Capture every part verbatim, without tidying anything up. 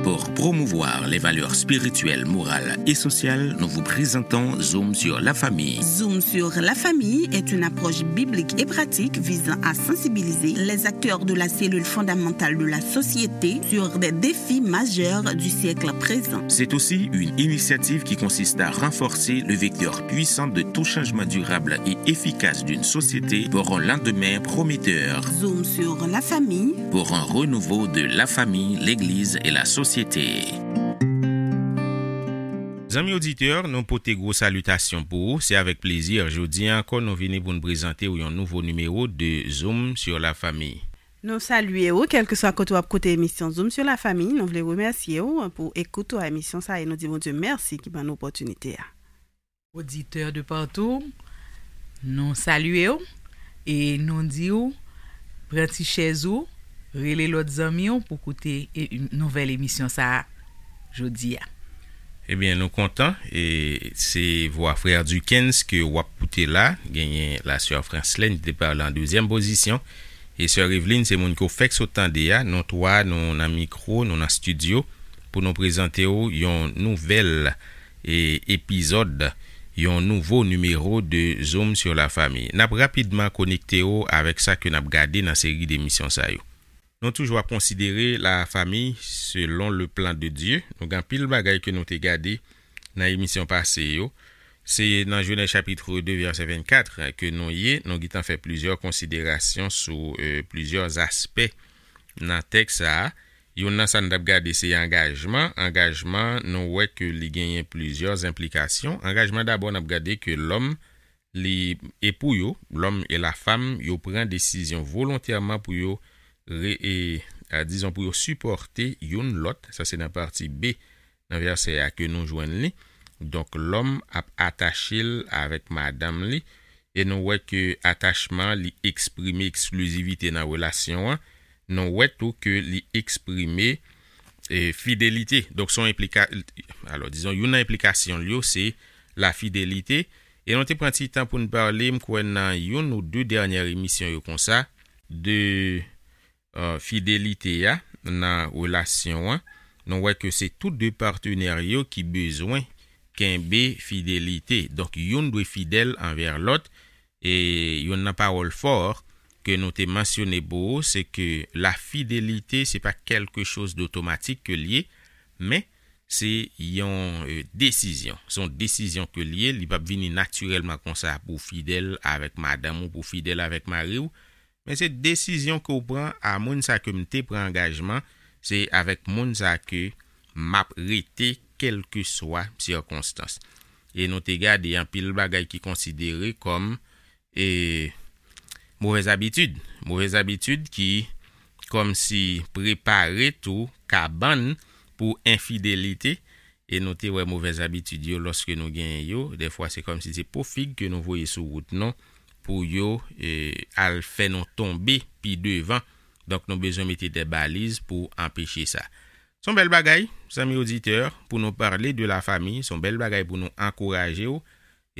Pour promouvoir les valeurs spirituelles, morales et sociales, nous vous présentons Zoom sur la famille. Zoom sur la famille est une approche biblique et pratique visant à sensibiliser les acteurs de la cellule fondamentale de la société sur des défis majeurs du siècle présent. C'est aussi une initiative qui consiste à renforcer le vecteur puissant de tout changement durable et efficace d'une société pour un lendemain prometteur. Zoom sur la famille. Pour un renouveau de la famille, l'Église et la société. Zanmi oditè, nou pote gwo salitasyon pou ou. Se avèk plezi, jodi a ankò, nou vini pou n prezante w yon nouvo nimewo de Zoom sur la famille. Nou salye w, kèlkeswa kote w ap koute emisyon Zoom sur la famille. Nou vle remèsye w pou ekout ou a emisyon sa e nou di Bondye mèsi ki ban nou opòtinite a. Oditè de partou, nou salye w e nou di w, pran ti chèz ou, rele lòt zanmi w pou koute e, nouvèl emisyon sa a jodi a. Ebyen, nou kontan, e se vwa frè Duckens ke w ap koute la, genyen la sè Franslèn ki te pale an dezyèm pozisyon, e sè Evelyn se moun ke w fèk sot tande a, nou twa, nou nan mikwo, nou nan estidyo, pou nou prezante w yon nouvèl e epizòd, yon nouvo nimewo de Zoom sur la famille. N ap rapidman konekte w avèk sa ke n ap gade nan seri de emisyon sa yo. Nou toujou ap konsidere la famille selon le plan de Dieu. Nou gen anpil bagay ke nou te gade nan emisyon pase yo. Se nan Jenèz chapit de vèsè vennkat ke nou ye. Nou gentan fè plizyè konsiderasyon sou, e, plizyè aspè nan tèks sa a. Youn nan sa n t ap gade se angajman. Angajman, nou wè ke li genyen plizyè enplikasyon. Angajman, dabò, n ap gade ke lòm, li, e pou yo, lòm e lafam, yo pran desizyon volontèman pou yo re-, e, a, dizon, pou yo sipòte youn lòt. Sa se nan pati B, nan vèsè a ke nou jwenn li. Donk, lòm ap atache l avèk madanm li, e nou wè ke atachman li eksprime eksklizivite nan relasyon an. Nou wè tou ke li eksprime, e, fidelite. Donk, se yon enplika-, alò, dizon, youn nan enplikasyon l yo, se lafidelite. E nou te pran ti tan pou n pale, m kwè, nan youn ou de dènyè emisyon yo konsa, de, e, fidelite a nan relasyon an. Nou wè ke se tou de patnè yo ki bezwen kenbe fidelite. Donk, youn dwe fidèl anvè lòt. E youn nan pawòl fò ke nou te mansyone pou ou, se ke lafidelite, se pa quelque chose d'automatique ke l ye, men se yon, e, desizyon. Se yon desizyon ke l ye, li p ap vini natirèlman konsa pou w fidèl avèk madanm ou, pou w fidèl avèk mari w, men se desizyon ke w pran a moun sa ke m te pran angajman, se avèk moun sa ke m ap rete kèlkeswa sikonstans. E nou te gade anpil bagay ki konsidere kòm, e, movèz abitid. Movèz abitid ki kòmsi prepare tou kabann pou enfidelite. E nou te wè movèz abitid yo, lòske nou genyen yo, dèfwa se kòmsi se po fig ke nou voye sou wout nou pou yo, e, al fè nou tonbe pi devan. Donk, nou bezwen mete de baliz pou anpeche sa. Se yon bèl bagay, zanmi oditè, pou nou pale de la famiy, se yon bèl bagay pou nou ankouraje w,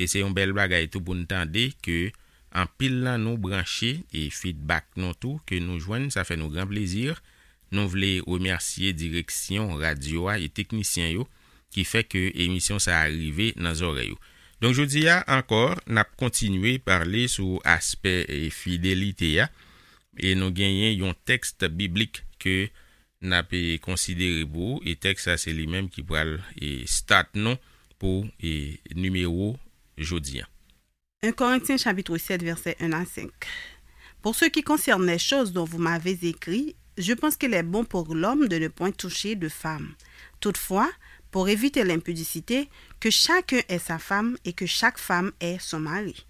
e se yon bèl bagay tou pou n tande ke anpil nan nou branche e feedback nou tou ke nou jwenn, sa fè nou gran plezi. Nou vle remèsye direksyon radyo a e teknisyen yo ki fè ke emisyon sa a rive nan zòrèy ou. Donk, jodi a ankò, n ap kontinye pale sou aspè, e, fidelite a, e nou genyen yon tèks biblik ke n ap, e, konsidere pou ou, e tèks sa se li menm ki pral, e, start nou pou, e, nimewo jodi a. Un Corinthiens chapitre sept, versets un à cinq. Pour ce qui concerne les choses dont vous m'avez écrit, je pense qu'il est bon pour l'homme de ne point toucher de femme. Toutefois, pour éviter l'impudicité, que chacun ait sa femme et que chaque femme ait son mari.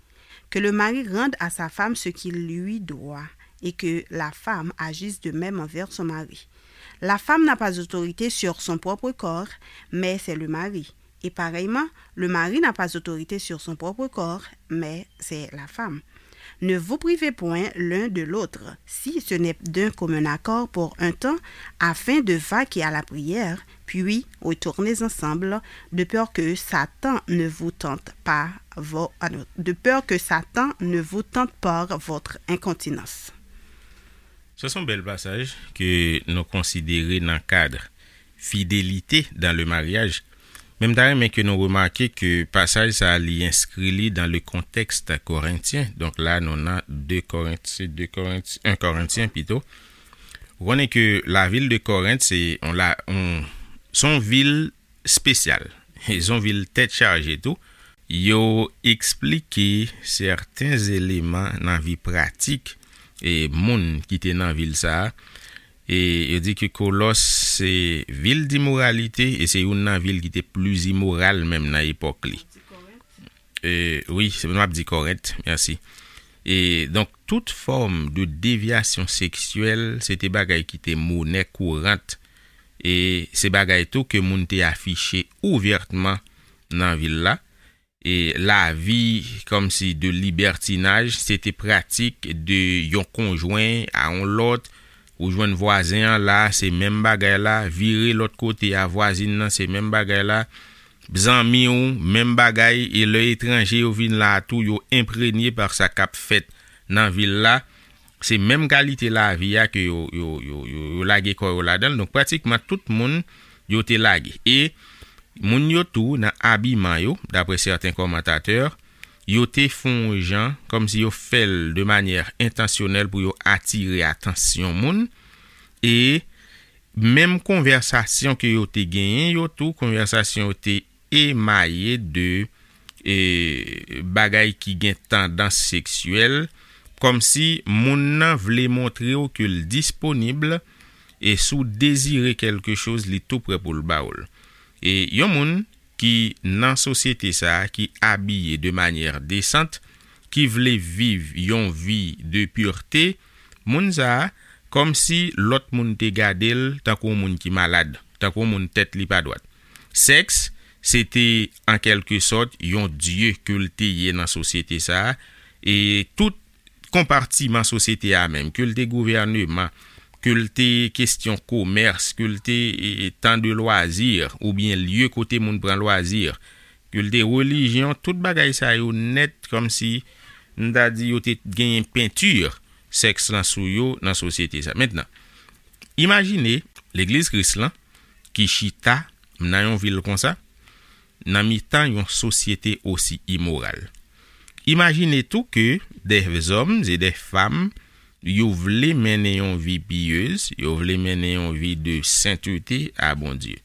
Que le mari rende à sa femme ce qu'il lui doit, et que la femme agisse de même envers son mari. La femme n'a pas autorité sur son propre corps, mais c'est le mari. Et pareillement, le mari n'a pas autorité sur son propre corps, mais c'est la femme. Ne vous privez point l'un de l'autre, si ce n'est d'un commun accord pour un temps, afin de vaquer à la prière, puis retournez ensemble, de peur que Satan ne vous tente par vo-, ah non, de peur que Satan ne vous tente par votre incontinence. Sa se yon bèl pasaj ke nou konsidere nan kad fidélité dans le mariage. Men m ta renmen ke nou remake ke pasaj sa a li enskri li dans le contexte corinthien. Donk la, nou nan de Korentyen, de Korentyen, en Korentyen pito. Ou konnen ke lavil de Korent, se on la, on, se on vil espesyal. Se on vil tèt chaje tou. Yo eksplike sèten eleman nan vi pratik e moun ki te nan vil sa a. E yo di ke Kolòs se vil dimoralite e se youn nan vil ki te pli imoral menm nan epòk li. E, wi, se m ap di Korent, mèsi. E donk, tout fòm de devyasyon seksyèl, se te bagay ki te monè kourant. E se bagay tou ke moun te afiche ouvètman nan vil la. E lavi kòmsi de libètinaj, se te pratik de yon konjwen a yon lòt. Ou jwenn vwazen an la, se menm bagay la, vire lòt kote a vwazin nan, se menm bagay la. Zanmi w, menm bagay, e lè etranje yo vin la a tou, yo enprenye pa sa k ap fèt nan vil la. Se menm kalite lavi a ke yo, yo, yo, yo, yo lage kò yo ladan l. Donk, pratikman tout moun, yo te lage. E moun yo tou, nan abiman yo, daprè sèten kòmantatè, yo te fè yon jan, kòmsi yo fè l de manyè entansyonèl pou yo atire atansyon moun. E menm konvèsasyon ke yo te genyen yo tou, konvèsasyon yo te emaye de, e, bagay ki gen tandans seksyèl, kòmsi moun nan vle montre w ke l disponib, e si w dezire kèlke choz, li tou prè pou l ba w l. E yon moun ki nan sosyete sa a, ki abiye de manyè desant, ki vle viv yon vi de pirte, moun sa a, kòmsi lòt moun te gade l tankou yon moun ki malad, tankou yon moun tèt li pa dwat. Sèks, se te, an kèlke sòt, yon dye ke l te ye nan sosyete sa a, e tout konpatiman sosyete a menm, ke l te gouvèneman, ke l te kesyon komès, ke l te, e, e, tan de lwazi, oubyen lye kote moun pran lwazi, ke l te relijyon, tout bagay sa yo nèt, kòmsi, m ta di, yo te genyen penti sèks lan sou yo nan sosyete sa. Mentnan, imajine legliz Kris lan ki chita nan yon vil konsa, nan mitan yon sosyete osi imoral. Imajine tou ke dè zòm e dè fanm, yo vle mennen yon vi piyez, yo vle mennen yon vi de sentete a Bondye.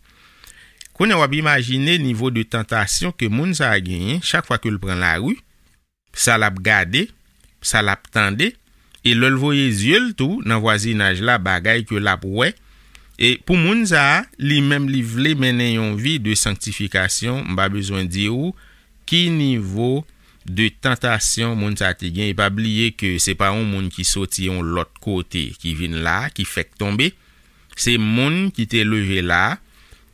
Kounye a w ap imajine nivo de tantasyon ke moun sa a genyen chak fwa ke l pran lari, sa l ap gade, sa l ap tande, e lè l voye zye l tou nan vwazinaj la, bagay ke l ap wè. E pou moun sa a, li menm li vle mennen yon vi de sanktifikasyon, m pa bezwen di w ki nivo de tantasyon moun sa a te gen. E pa bliye ke se pa yon moun ki soti yon lòt kote ki vin la, ki fèk tonbe. Se moun ki te leve la,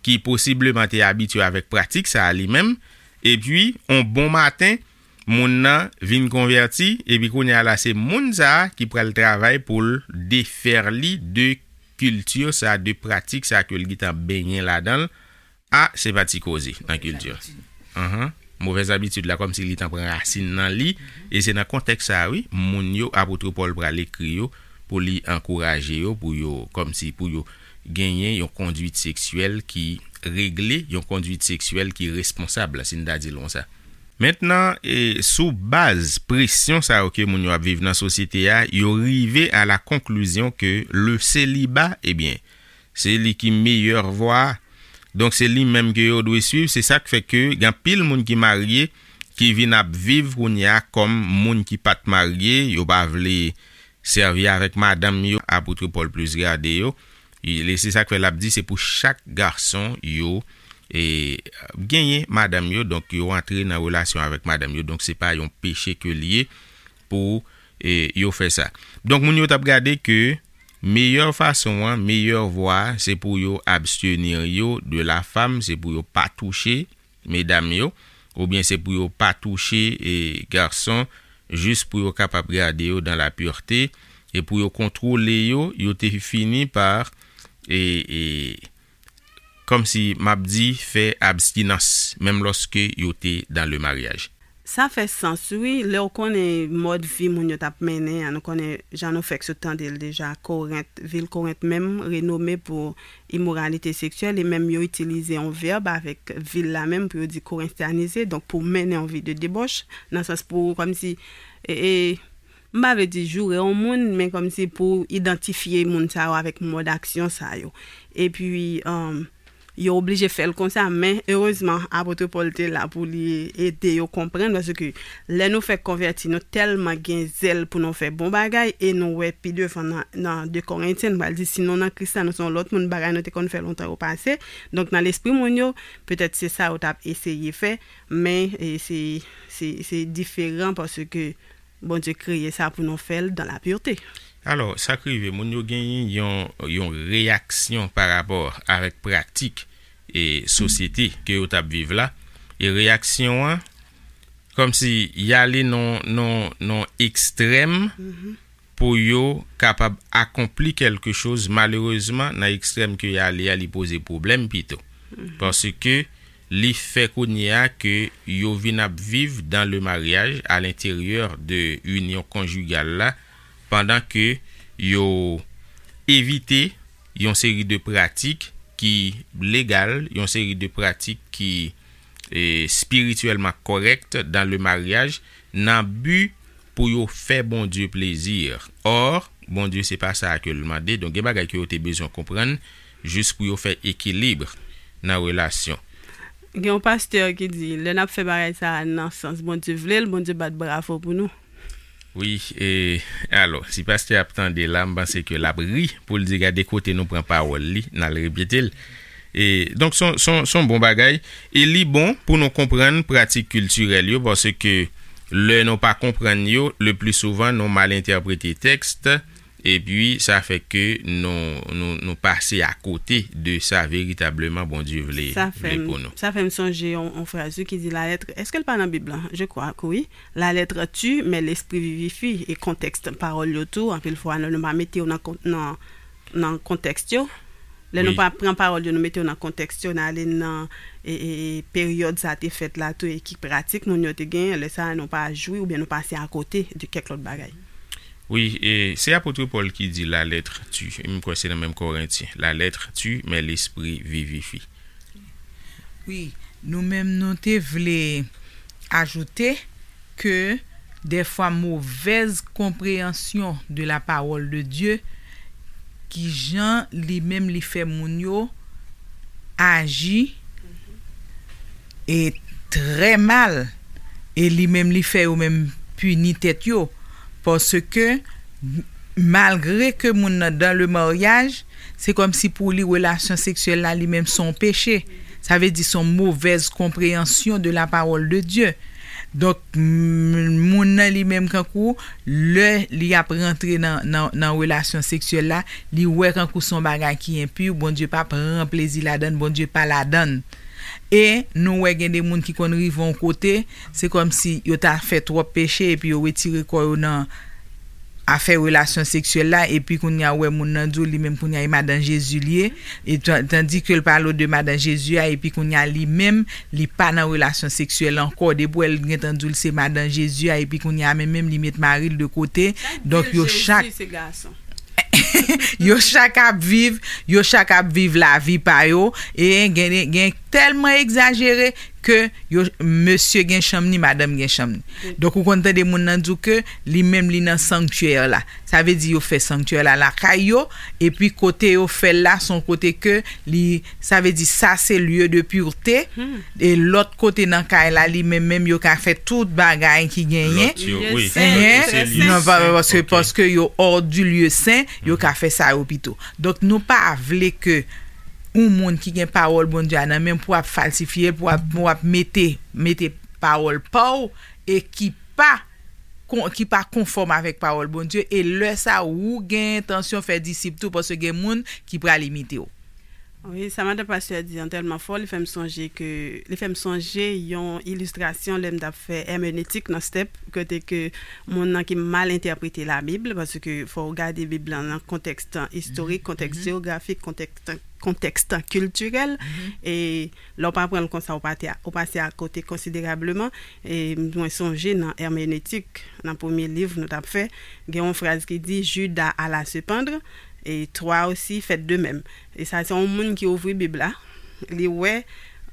ki posibleman te abitye avèk pratik sa a li menm, epi, on bon maten, moun nan vin konvèti, epi kounye a la, se moun sa a ki pral travay pou l defè li de kilti sa a, de pratik sa a ke l gentan benyen ladan l. A, se pa ti koze nan kilti. Anhan. Movèz abitid la, kòmsi li t an pran rasin nan li, e se nan kontèks sa a, wi, moun yo, apot Pòl pral ekri yo, pou li ankouraje yo, pou yo, kòmsi pou yo genyen yon kondwit seksyèl ki regle, yon kondwit seksyèl ki responsab, si n ta di l konsa. Mentnan, e, sou baz presyon sa yo ke moun yo ap viv nan sosyete a, yo rive a la konklizyon ke le seliba, ebyen, se li ki meyè vwa. Donk, se li menm ke yo dwe swiv. Se sa k fè ke gen anpil moun ki marye, ki vin ap viv kounye a kòm moun ki pa t marye, yo pa vle sèvi avèk madanm yo, apot Pòl plis gade yo. E se sa k fè l ap di, se pou chak gason yo, e, genyen madanm yo, donk yo antre nan relasyon avèk madanm yo. Donk, se pa yon peche ke l ye pou, e, yo fè sa. Donk, moun yo t ap gade ke meyè fason an, meyè vwa, se pou yo abstenir yo de la femme, se pou yo pa touche medam yo, oubyen se pou yo pa touche, e, gason, jis pou yo kapab gade yo dans la pureté, e pou yo kontwole yo, yo te fini pa, e, e, kòmsi m ap di, fè abstinans, menm lòske yo te dans le mariage. Sa fè sans, wi. Lè w konnen mòd vi moun yo t ap mennen an, nou konnen jan nou fèk sot tande l deja, Korent, vil Korent menm renome pou imoralite seksyèl, e menm yo itilize yon vèb avèk vil la menm pou yo di korentyanize, donk pou mennen yon vi de debòch, nan sans pou kòmsi, e, e, m pa vle di joure yon moun, men kòmsi pou idantifye moun sa yo avèk mòd aksyon sa yo. Epi, um, yo oblije fè l konsa, men erezman, apot Pòl te la pou li ede yo konprann, paske lè nou fèk konvèti, nou tèlman gen zèl pou nou fè bon bagay, e nou wè pi devan nan, nan de Korentyen, nou pral di, si nou nan Kris la, nou se yon lòt moun, bagay nou te konn fè lontan yo pase. Donk, nan lespri moun yo, petèt se sa yo t ap eseye fè, men, e, se, se, se diferan paske Bondye kreye sa pou nou fè l dans la pureté. Alò, sa k rive, moun yo genyen yon, yon reyaksyon pa rapò avèk pratik e sosyete ke yo t ap viv la. E reyaksyon an, kòmsi y ale nan, nan, nan ekstrèm pou yo kapab akonpli kèlke choz. Malerezman, nan ekstrèm ke y ale a, li poze pwoblèm pito. Paske li fè kounye a ke yo vin ap viv dans le mariage, à l'intérieur de inyon konjigal la, pandan ke yo evite yon seri de pratik ki legal, yon seri de pratik ki, e, espirityèlman kòrèk dans le mariage, nan bi pou yo fè Bondye plezi. Or, Bondye se pa sa ke l mande. Donk, gen bagay ke yo te bezwen konprann jis pou yo fè ekilib nan relasyon. Gen yon pastè ki di, lè n ap fè bagay sa a nan sans Bondye vle l, Bondye bat bravo pou nou. Wi, e, alò, si pastè ap tande la, m panse ke l ap ri pou l di, "Gade kote nou pran pawòl li, n al repete l." E, donk, se yon, se yon, se yon bon bagay. E li bon pou nou konprann pratik kiltirèl yo, paske lè nou pa konprann yo, le pli souvan, nou mal entèprete tèks, epi sa fè ke nou, nou, nou pase akote de sa veritableman Bondye vle, Sa fè vle m, pou nou. Sa fè m sonje yon, yon fraz, wi, ki di, "La lettre", èske l pa nan Bib lan? Je crois que oui. "La lettre tue, mais l'esprit vivifie." E kontèks pawòl yo tou, anpil fwa, nou, nou pa mete yo nan kon-, nan, nan kontèks yo. Lè nou Wi. pa pran pawòl yo, nou mete yo nan kontèks yo, n ale nan, e, e, e, peryòd sa te fèt la tou, e ki pratik moun yo te genyen, lè sa a, nou pa jwi oubyen nou pase akote de kèk lòt bagay. Wi, e se apot Pòl ki di, "La lettre tue." M kwè se nan menm Korentyen. "La lettre tue, mais l'esprit vivifie." Wi, nou menm nou te vle ajoute ke dèfwa movèz konpreyansyon de la parole de Dieu, ki jan li menm li fè moun yo aji e trè mal, e li menm li fè yo menm pini tèt yo, paske malgre ke moun nan dans le mariage, se kòmsi pou li relasyon seksyèl la li menm se yon peche. Sa vle di se yon movèz konpreyansyon de la parole de Dieu. Donk, m-, moun nan li menm kankou, lè li ap rantre nan, nan, nan relasyon seksyèl la, li wè kankou se yon bagay ki enpi, Bondye pa pran plezi ladann, Bondye pa ladann. E nou wè gen de moun ki konn rive yon kote, se kòmsi yo ta fè twòp peche epi yo retire kò yo nan afè relasyon seksyèl la, epi kounye a ou wè moun nan di w li menm kounye a e madan Jezi li ye, e tan-, tandi ke l pale w de madan Jezi a, epi kounye a li menm, li pa nan relasyon seksyèl ankò, depi w wè l gentan di w l se madan Jezi a, epi kounye a menm menm li met mari l de kote. Donk yo chak yo chak ap viv, yo chak ap viv lavi pa yo, e gen, gen tèlman egzajere ke yo, mesye gen chanm ni, madanm gen chanm ni. Donk ou konn tande moun nan di w ke li menm li nan sanktyè la. Sa vle di yo fè sanktyè la lakay yo, epi kote yo fè l la se yon kote ke li, sa vle di sa se lieu de pureté, e lòt kote nan kay la li menm menm yo ka fè tout bagay ki genyen. Lòt yo, wi. Ehen. Nan pa, paske, paske yo hors du lieu saint, yo ka fè sa yo pito. Donk nou pa vle ke yon moun ki gen pawòl Bondye a nan men pou ap falsifye l, pou ap, pou ap mete, mete pawòl pa w e ki pa kon-, ki pa konfòm avèk pawòl Bondye, e lè sa ou gen entansyon fè disip tou, paske gen moun ki pral imite w. Wi, sa madan pastè di an tèlman fò, li fè m sonje ke, li fè m sonje yon ilistrasyon lè m t ap fè èmenetik nan stèp, kote ke moun nan ki mal entèprete Labib, paske fò w gade Bib lan nan kontèks istorik, kontèks jewografik, kontèks, kontèks kiltirèl, e lè w pa pran l konsa, ou pate a, ou pase akote konsiderableman. E mwen sonje nan èmenetik, nan premye liv nou t ap fè, gen yon fraz ki di, Judas alla se pendre, et toi aussi faites de même. E sa se yon moun ki ouvri Bib la, li wè,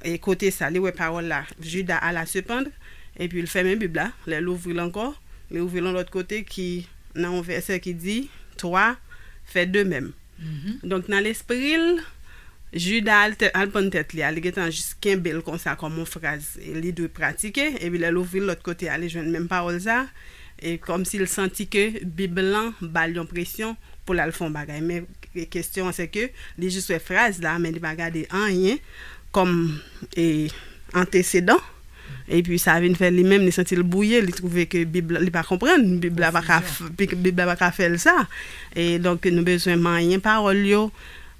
e kote sa, li wè pawòl la, Judas alla se pendre, epi l fèmen Bib la, lè l ouvri l ankò, li ouvri l yon lòt kote ki nan yon vèsè ki di, toi fais de même. Donk, nan lespri l, Judas al, te- al prann tèt li a, li gentan jis kenbe l konsa kòm yon fraz li dwe pratike, epi lè l ouvri l lòt kote a, li jwenn menm pawòl sa, e kòmsi l santi ke Bib lan ba l yon presyon pou l al fè yon bagay. Men kesyon an se ke li jis wè fraz la, men li pa gade anyen kòm e, antesedan. Epi sa vin fè li menm, li santi l bwouye, li twouve ke Bib la, li pa konprann, Bib la pa ka, f- Bib la pa ka fè l sa. E donk, nou bezwen manyen pawòl yo,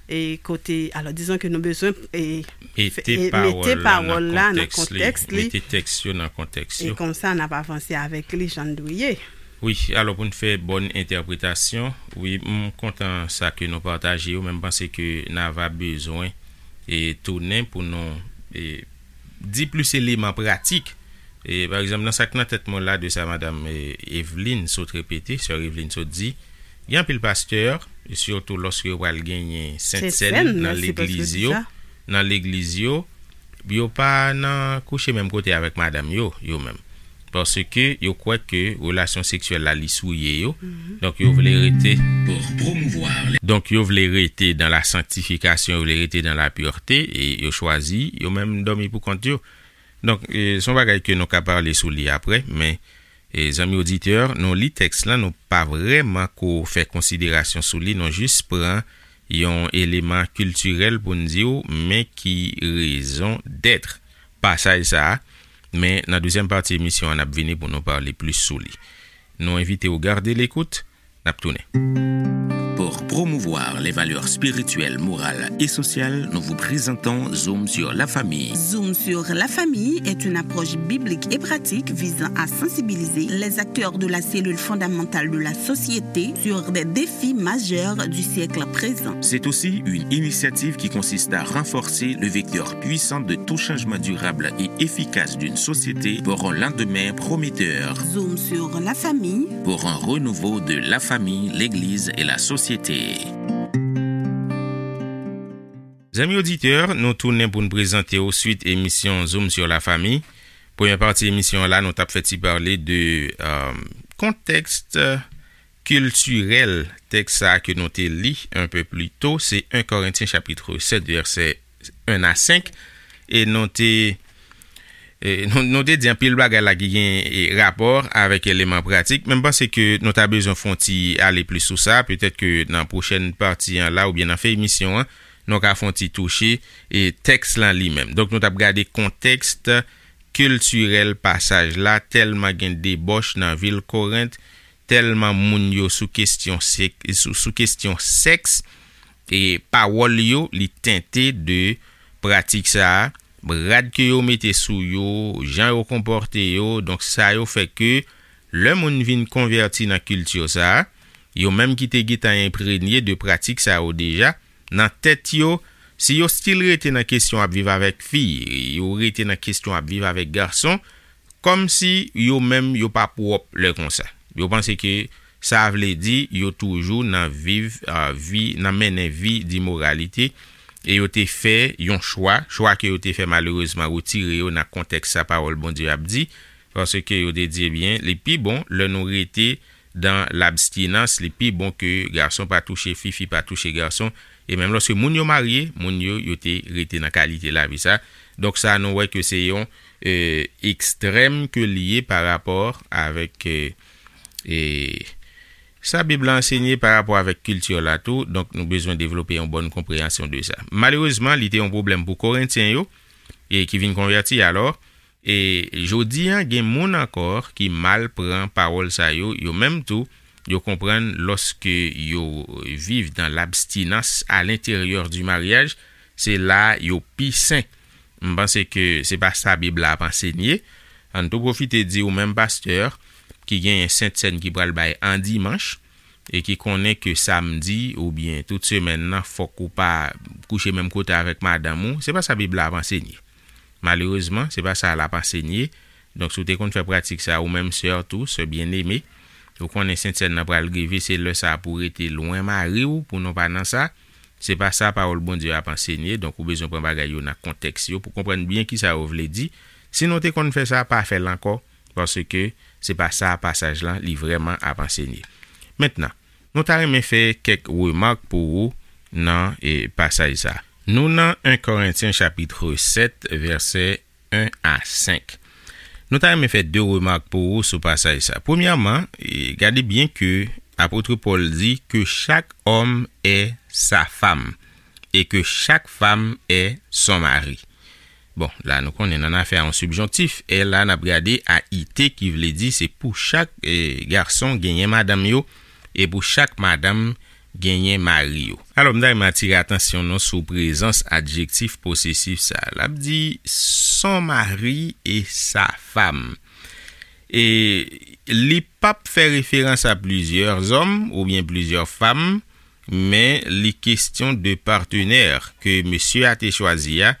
e kote, alò, dizon ke nou bezwen e, Mete e, pawòl mete la nan pawòl la nan kontèks li, kontèks li. Mete tèks yo nan kontèks yo. E konsa, n ap avanse avèk li jan l dwe ye. Wi, alò, pou n fè bòn entèpretasyon, wi, m kontan sa ke nou pataje yo, men m panse ke n ava bezwen e tounen pou nou e, di plis eleman pratik. E, pa egzanp, nan sa k nan tèt mwen la de sa madanm e, Eveline sot repete, sè Eveline sot di, gen anpil pastè, e sitou lòske yo pral genyen Sent Sèn nan legliz yo, nan legliz yo, yo pa nan kouche menm kote avèk madanm yo, yo menm. Paske yo kwè ke relasyon seksyèl la li souye yo. Donk yo vle rete Pour promouvoir les Donk yo vle rete dans la sanctification, yo vle rete dans la pureté, e yo chwazi yo menm dòmi pou kont yo. Donk e, se yon bagay ke nou ka pale sou li apre, men e, zanmi oditè, nou li tèks lan, nou pa vrèman ko fè konsiderasyon sou li, nou jis pran yon eleman kiltirèl pou n di w, men ki raison d'être pasaj sa a, men nan dezyèm pati emisyon an, n ap vini pou nou pale plis sou li. Nou envite w gade lekout, n ap tounen. Pour promouvoir les valeurs spirituelles, morales et sociales, nous vous présentons Zoom sur la famille. Zoom sur la famille est une approche biblique et pratique visant à sensibiliser les acteurs de la cellule fondamentale de la société sur des défis majeurs du siècle présent. C'est aussi une initiative qui consiste à renforcer le vecteur puissant de tout changement durable et efficace d'une société pour un lendemain prometteur. Zoom sur la famille. Pour un renouveau de la famille, l'Église et la société. Zanmi oditè, nou tounen pou n prezante w swit emisyon Zoom sur la famille. Premyè pati emisyon an la, nou t ap fè ti pale de euh, kontèks kiltirèl tèks sa a ke nou te li un peu plus tôt, se un Korentyen chapit sèt, vèsè un a senk, e nou te e, nou, nou te di anpil bagay la ki gen e, rapò avèk eleman pratik, men m panse ke nou ta bezwen fè yon ti ale plis sou sa, petèt ke nan pwochèn pati an la, oubyen nan fen emisyon an, nou ka fè yon ti touche e, tèks lan li menm. Donk, nou t ap gade kontèks kiltirèl pasaj la, tèlman gen debòch nan vil Korent, tèlman moun yo sou kesyon sèk, sou, sou kesyon sèks, e pawòl yo, li tente de pratik sa a, rad ke yo mete sou yo, jan yo konpòte yo, donk sa yo fè ke lè moun vin konvèti nan kilti sa a, yo menm ki te gentan enprenye de pratik sa yo deja, nan tèt yo, si yo still rete nan kesyon ap viv avèk fi, yo rete nan kesyon ap viv avèk gason, kòmsi yo menm yo pa pwòp lè konsa. Yo panse ke sa vle di yo toujou nan viv, a, vi, nan mennen vi dimoralite, e yo te fè yon chwa, chwa ke yo te fè malerezman retire yo nan kontèks sa pawòl Bondye ap di, paske yo te di, ebyen, li pi bon lè nou rete dan labstinans, li pi bon ke gason pa touche fi, fi pa touche gason, e menm lòske moun yo marye, moun yo, yo te rete nan kalite lavi sa. Donk sa, nou wè ke se yon e, ekstrèm ke li ye pa rapò avèk e, e, sa Bib la ansenye pa rapò avèk kilti la tou, donk nou bezwen devlope yon bòn konpreyansyon de sa. Malerezman, li te yon pwoblèm pou Korentyen yo, e ki vin konvèti alò, e jodi a, gen moun ankò ki mal pran pawòl sa yo, yo menm tou, yo konprann lòske yo viv dan labstinans a lenteryè di maryaj, se la yo pi sen. M panse ke se pa sa Bib la ap ansenye. Ann tou pwofite di ou menm pastè ki genyen sentsèn ki pral bay an dimanch e ki konnen ke samdi oubyen tout semèn nan fòk ou pa kouche menm kote avèk madanm ou, se pa sa Bib la ap ansenye. Malerezman, se pa sa l ap ansenye. Donk, si w te konn fè pratik sa, ou menm sè tou, sè byeneme, ou konnen sentsèn nan pral rive, se lè sa a pou w rete lwen mari w, pou nou pa nan sa. Se pa sa pawòl Bondye ap ansenye, donk ou bezwen pran bagay yo nan kontèks yo pou konprann byen kisa yo vle di. Si nou te konn fè sa, pa fè l ankò, paske se pa sa pasaj lan li vrèman ap ansenye. Mentnan, nou ta renmen fè kèk remak pou ou nan e, pasaj sa. Nou nan en Korentyen chapit sèt, vèsè en a senk. Nou ta renmen fè de remak pou ou sou pasaj sa. Premyèman, e, gade byen ke apot Pòl di que chaque homme est sa femme et que chaque femme est son mari. Bon, la nou konnen nan afè a yon sibjonktif, e la n ap gade a i te ki vle di se pou chak e, gason genyen madanm yo e pou chak madanm genyen mari yo. Alò, m ta renmen atire atansyon nou sou prezans adjektif posesif sa a. L ap di son mari et sa femme. E li p ap fè referans a plizyè zòm oubyen plizyè fanm, men li kesyon de patenè ke mesye a te chwazi a,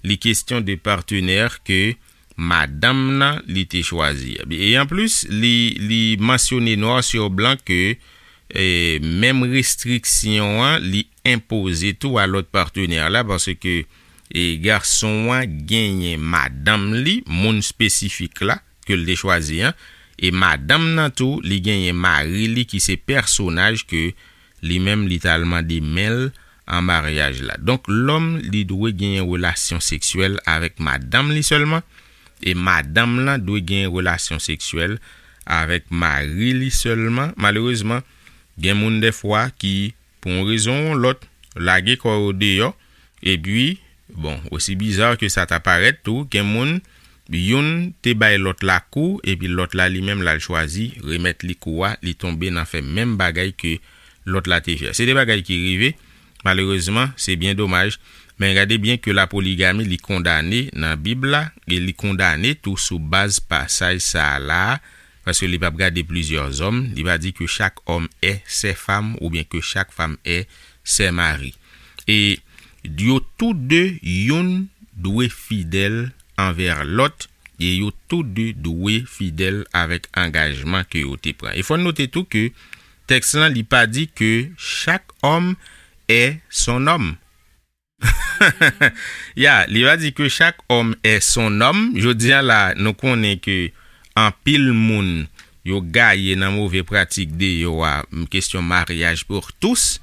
li kesyon de patenè ke madanm nan li te chwazi a. E anplis, li, li mansyone noir sur blanc ke e, menm restriksyon an, li enpoze tou a lòt patenè la, paske e, gason an genyen madanm li, moun espesifik la, ke l te chwazi an, e madanm nan tou, li genyen mari li ki se pèsonaj ke li menm li t al mande men l an maryaj la. Donk, lòm li dwe genyen relasyon seksyèl avèk madanm li sèlman, e madanm lan dwe genyen relasyon seksyèl avèk mari li sèlman. Malerezman, gen moun dèfwa ki, pou yon rezon ou yon lòt, lage kò yo deyò, epi, bon, osi biza ke sa ta parèt tou, gen moun, youn te bay lòt la kou, epi lòt la li menm l al chwazi remèt li kou a, li tonbe nan fè menm bagay ke lòt la te fè. Se de bagay ki rive, malerezman, se byen domaj, men gade byen ke la poligami li kondane nan Bib la, e li kondane tou sou baz pasaj sa a la, paske li p ap gade plizyè zòm, li va di que chaque homme est sa femme oubyen que chaque femme est son mari. E yo tou de, youn dwe fidèl anvè lòt, e yo tou de dwe fidèl avèk angajman ke yo te pran. E fò n note tou ke tèks lan, li pa di que chaque homme est son homme. Ya, li va di que chaque homme est son homme. Jodi a la, nou konnen ke anpil moun yo gaye nan move pratik de yo a, m, kesyon maryaj pour tous.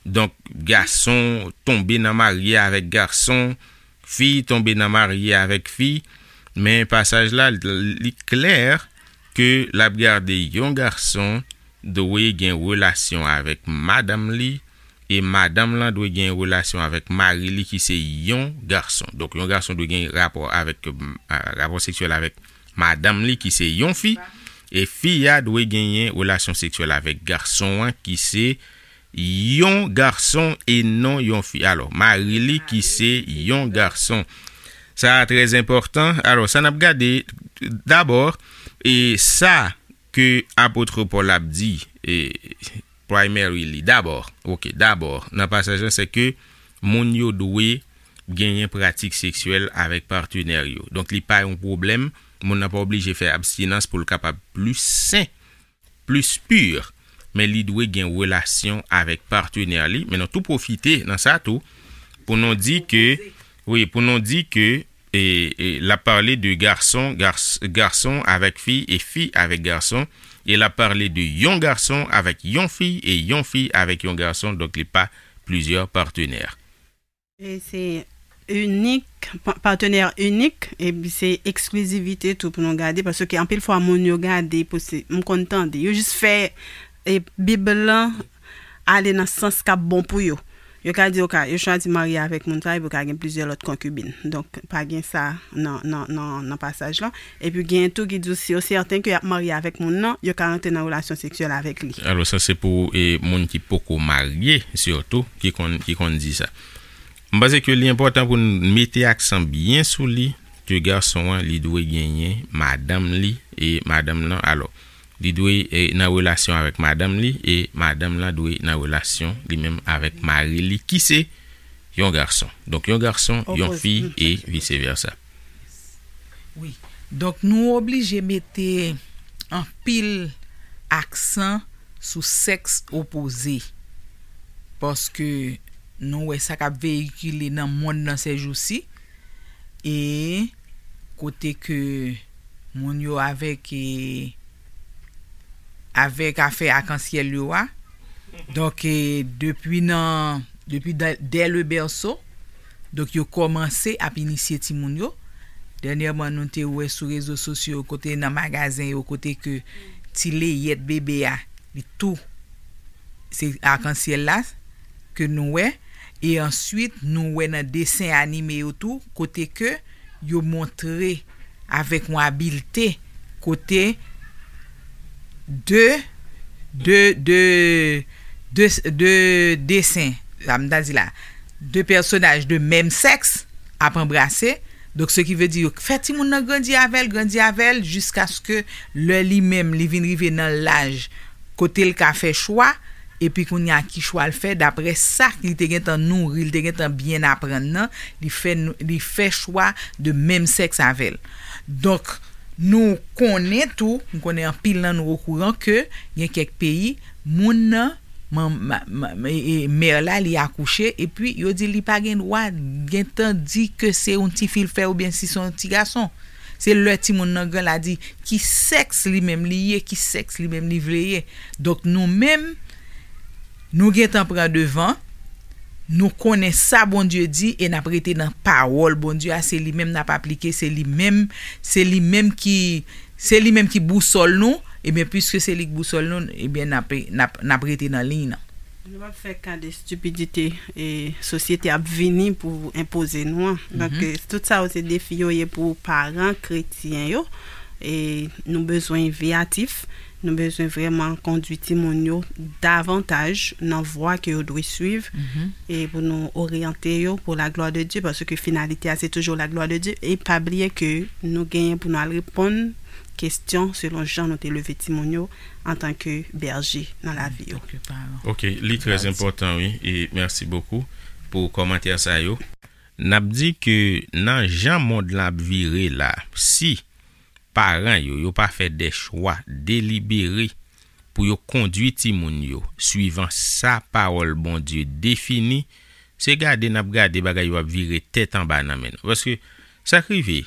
Donk, gason tonbe nan marye avèk gason, fi tonbe nan marye avèk fi. Men pasaj la, li klè ke l ap gade yon gason dwe gen relasyon avèk madanm li, e madanm lan dwe gen relasyon avèk mari li ki se yon gason. Donk, yon gason dwe gen rapò avèk, a, rapò seksyèl avèk madanm li ki se yon fi, e fi a dwe genyen relasyon seksyèl avèk gason an ki se yon gason e non yon fi. Alò, mari li ki se yon gason. Sa a trè enpòtan. Alò, sa n ap gade dabò, e sa ke apot Pòl ap di, e, primary li, dabò, oke, dabò, nan pasaj lan, se ke moun yo dwe genyen pratik seksyèl avèk patenè yo. Donk, li pa yon pwoblèm, moun nan pa oblije fè abstinans pou l kapab plis sen, plis pi, men li dwe gen relasyon avèk patenè li. Men nou tou pwofite nan sa tou, pou nou di ke, wi, pou nou di ke, e, e, l ap pale de gason, gars-, gason avèk fi e fi avèk gason, e l ap pale de yon gason avèk yon fi e yon fi avèk yon gason, donk li pa plizyè patenè. E se inik, pa-, patenè inik, epi se eksklizivite tou pou nou gade, paske anpil fwa moun yo gade, pou se, m konn tande, yo jis fè, e, Bib lan ale nan sans k ap bon pou yo. Yo ka di, yo ka, yo chwazi marye avèk moun sa, epi yo ka gen plizyè lòt konkibin. Donk, pa gen sa nan, nan, nan, nan pasaj lan. Epi gen tou ki di si yo sèten ke y ap marye avèk moun nan, yo ka rantre nan relasyon seksyèl avèk li. Alò, sa se pou, e, moun ki poko marye, sitou, ki konn, ki konn di sa. M panse ke li enpòtan pou n mete aksan byen sou li, ke gason an, li dwe genyen madanm li, e madanm lan, alò, li dwe, e, nan relasyon avèk madanm li, e madanm lan dwe nan relasyon li menm avèk mari li, ki se yon gason. Donk, yon gason, yon fi, e vice versa. Wi. Donk, nou oblije mete anpil aksan sou sèks opoze. Paske nou wè sa k ap veyikile nan mond nan sèjousi. E kote ke moun yo avèk, e, avèk afè akansyèl yo a. Donk, e, depi nan, depi dè, dè le bèso, donk, yo kòmanse ap inisye timoun yo. Dènyèman, nou te wè sou rezo sosyo yo, kote nan magazen yo, kote ke ti leyèt bebe a, li tou, se akansyèl la ke nou wè. E answit, nou wè nan desen anime yo tou, kote ke yo montre avèk yon abilte, kote de, de, de, de, de desen, sa m ta di la, de pèsonaj de menm sèks ap anbrase. Donk, se ki vle di yo fè timoun nan grandi avè l, grandi avè l, jiskaske lè li menm, li vin rive nan laj kote l ka fè chwa, epi kounye a ki chwa l fè, daprè sa li te gentan nouri, li te gentan byen aprann nan, li fè, li fè chwa de menm sèks avè l. Donk, nou konnen tou, m konnen anpil nan nou okouran ke gen kèk peyi, moun nan, man, ma, ma, e, e, mè la, li akouche, epi yo di li pa gen dwa gentan di ke se yon tifi l fè oubyen si se yon ti gason. Se lè timoun nan gran la di ki sèks li menm li ye, ki sèks li menm li vle ye. Donk, nou menm, nou gentan pran devan, nou konnen sa Bondye di e n ap rete nan pawòl Bondye a, se li menm n ap aplike, se li menm, se li menm ki, se li menm ki bousòl nou, ebyen, piske se li k bousòl nou, ebyen, n ap, n ap, n ap rete nan liy nan. Nou p ap fè ka de estipidite e sosyete ap vini pou enpoze nou an. Donk, e, tout sa yo se defi yo ye pou paran kretyen yo. E nou bezwen veyatif, nou bezwen vrèman kondui timoun yo davantaj nan vwa ke yo dwe swiv e pou nou oryante yo pour la gloire de Dieu, paske finalite a se toujou la gloire de Dieu. E pa bliye ke nou genyen pou nou al reponn kesyon selon jan nou te leve timoun yo antanke bèje nan lavi yo. Ok, li trè enpòtan, wi, e mèsi bokou pou kòmantè sa yo. N ap di ke nan jan mond lan ap vire la, si paran yo, yo pa fè de chwa delibere pou yo kondui timoun yo swivan sa pawòl Bondye defini, se gade n ap gade bagay yo ap vire tèt anba nan men nou. Paske sa k rive,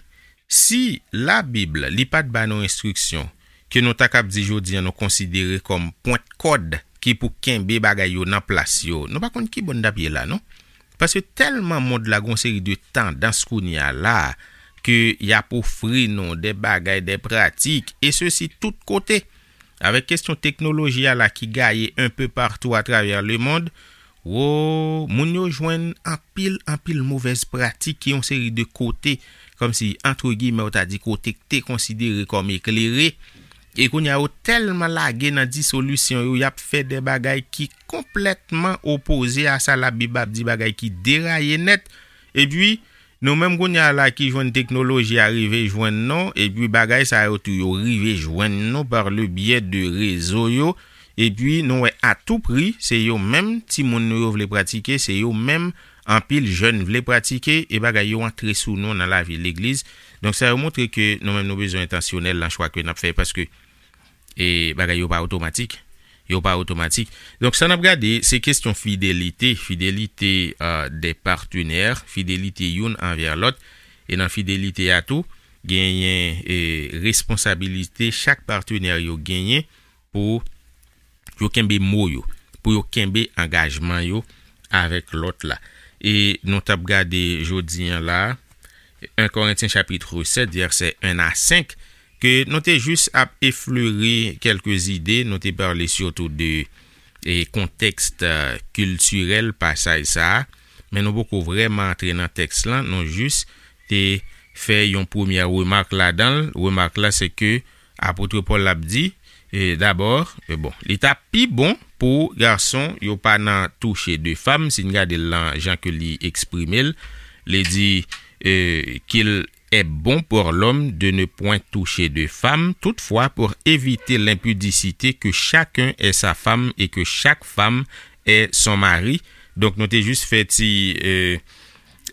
si Labib li pa t ba nou enstriksyon ke nou ta kab di jodi a nou konsidere kòm pwent kòd ki pou kenbe bagay yo nan plas yo, nou pa konn ki bò n t ap ye la, non. Paske tèlman mond la gen yon seri de tandans kounye a la a, ke y ap ofri nou de bagay, de pratik, e sesi tout kote. Avèk kesyon teknoloji a la ki gaye un peu partout à travers le monde, wo, moun yo jwenn anpil, anpil movèz pratik ki yon seri de kote, kòmsi, antre giyimè, ou ta di kote k te konsidere kòm eklere, e kounye a yo tèlman lage nan disolisyon yo, y ap fè de bagay ki konplètman opoze a sa Labib ap di, bagay ki deraye nèt. Epi, nou menm kounye a la ki jwenn teknoloji a rive jwenn nou, epi bagay sa yo tou yo rive jwenn nou par le biais de rezo yo, epi nou wè a tou pri, se yo menm timoun nou yo vle pratike, se yo menm anpil jèn vle pratike, e bagay yo antre sou nou nan lavi legliz. Donk, sa yo montre ke nou menm nou bezwen entansyonèl nan chwa ke n ap fè, paske e bagay yo pa otomatik. Yo pa otomatik. Donk, sa n ap gade, se kesyon fidelite, fidelite, euh, de patenè, fidelite youn anvè lòt. E nan fidelite a tou, genyen, e, responsabilite chak patenè yo genyen pou yo kenbe mo yo, pou yo kenbe angajman yo avèk lòt la. E nou t ap gade jodi a la, en Korentyen chapit sèt, vèsè en a senk, ke nou te jis ap eflere kèlke zide, nou te pale sitou de, e, kontèks, e, kiltirèl pasaj sa a, men nou poko vrèman antre nan tèks lan, nou jis te fè yon premyè remak ladan l. Remak la, se ke apot Pòl ap di, e, dabò, e, bon, li t ap pi bon Pou gason, yo pa nan touche de fam, si n gade l lan jan ke li eksprime l, li di, euh, qu'il est bon pour l'homme de ne point toucher de femme, toutefois pour éviter l'impudicité que chacun est sa femme et que chaque femme est son mari. Donk nou te jis fè ti euh,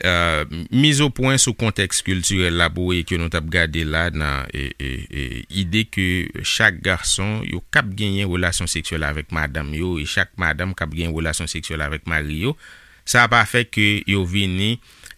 euh, miz o pwen sou kontèks kiltirèl la pou wè ke nou t ap gade la nan e, e, e, ide ke chak gason yo kab genyen relasyon seksyèl avèk madanm yo e chak madanm kab genyen relasyon seksyèl avèk mari yo, sa pa fè ke yo vini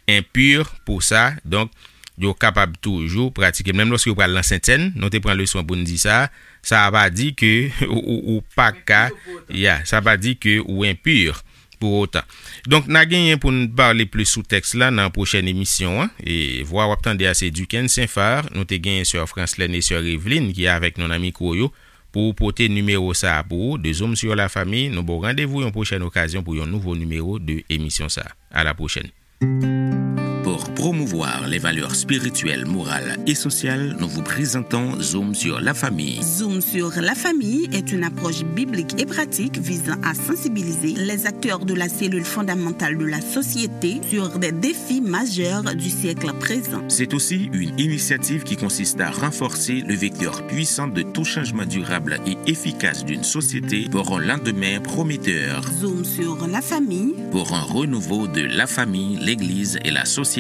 enpir pou sa. Donk yo kapab toujou pratike menm lòske yo pral nan sentsèn. Nou te pran leson pou n di sa. Sa pa di ke ou, ou pa ka, ya, sa pa di ke ou enpir pou otan. Donk n a genyen pou n pale plis sou tèks la nan pwochèn emisyon an. E vwa w ap tande a se Duken Senfar. Nou te genyen sè Franslèn e sè Eveline ki avèk nou nan mikwo yo pou pote nimewo sa a pou ou, de Zoom sur la Famille. Nou ba w randevou yon pwochèn okazyon pou yon nouvo nimewo de emisyon sa a. À la prochaine. Pour promouvoir les valeurs spirituelles, morales et sociales, nous vous présentons Zoom sur la famille. Zoom sur la famille est une approche biblique et pratique visant à sensibiliser les acteurs de la cellule fondamentale de la société sur des défis majeurs du siècle présent. C'est aussi une initiative qui consiste à renforcer le vecteur puissant de tout changement durable et efficace d'une société pour un lendemain prometteur. Zoom sur la famille. Pour un renouveau de la famille, l'Église et la société.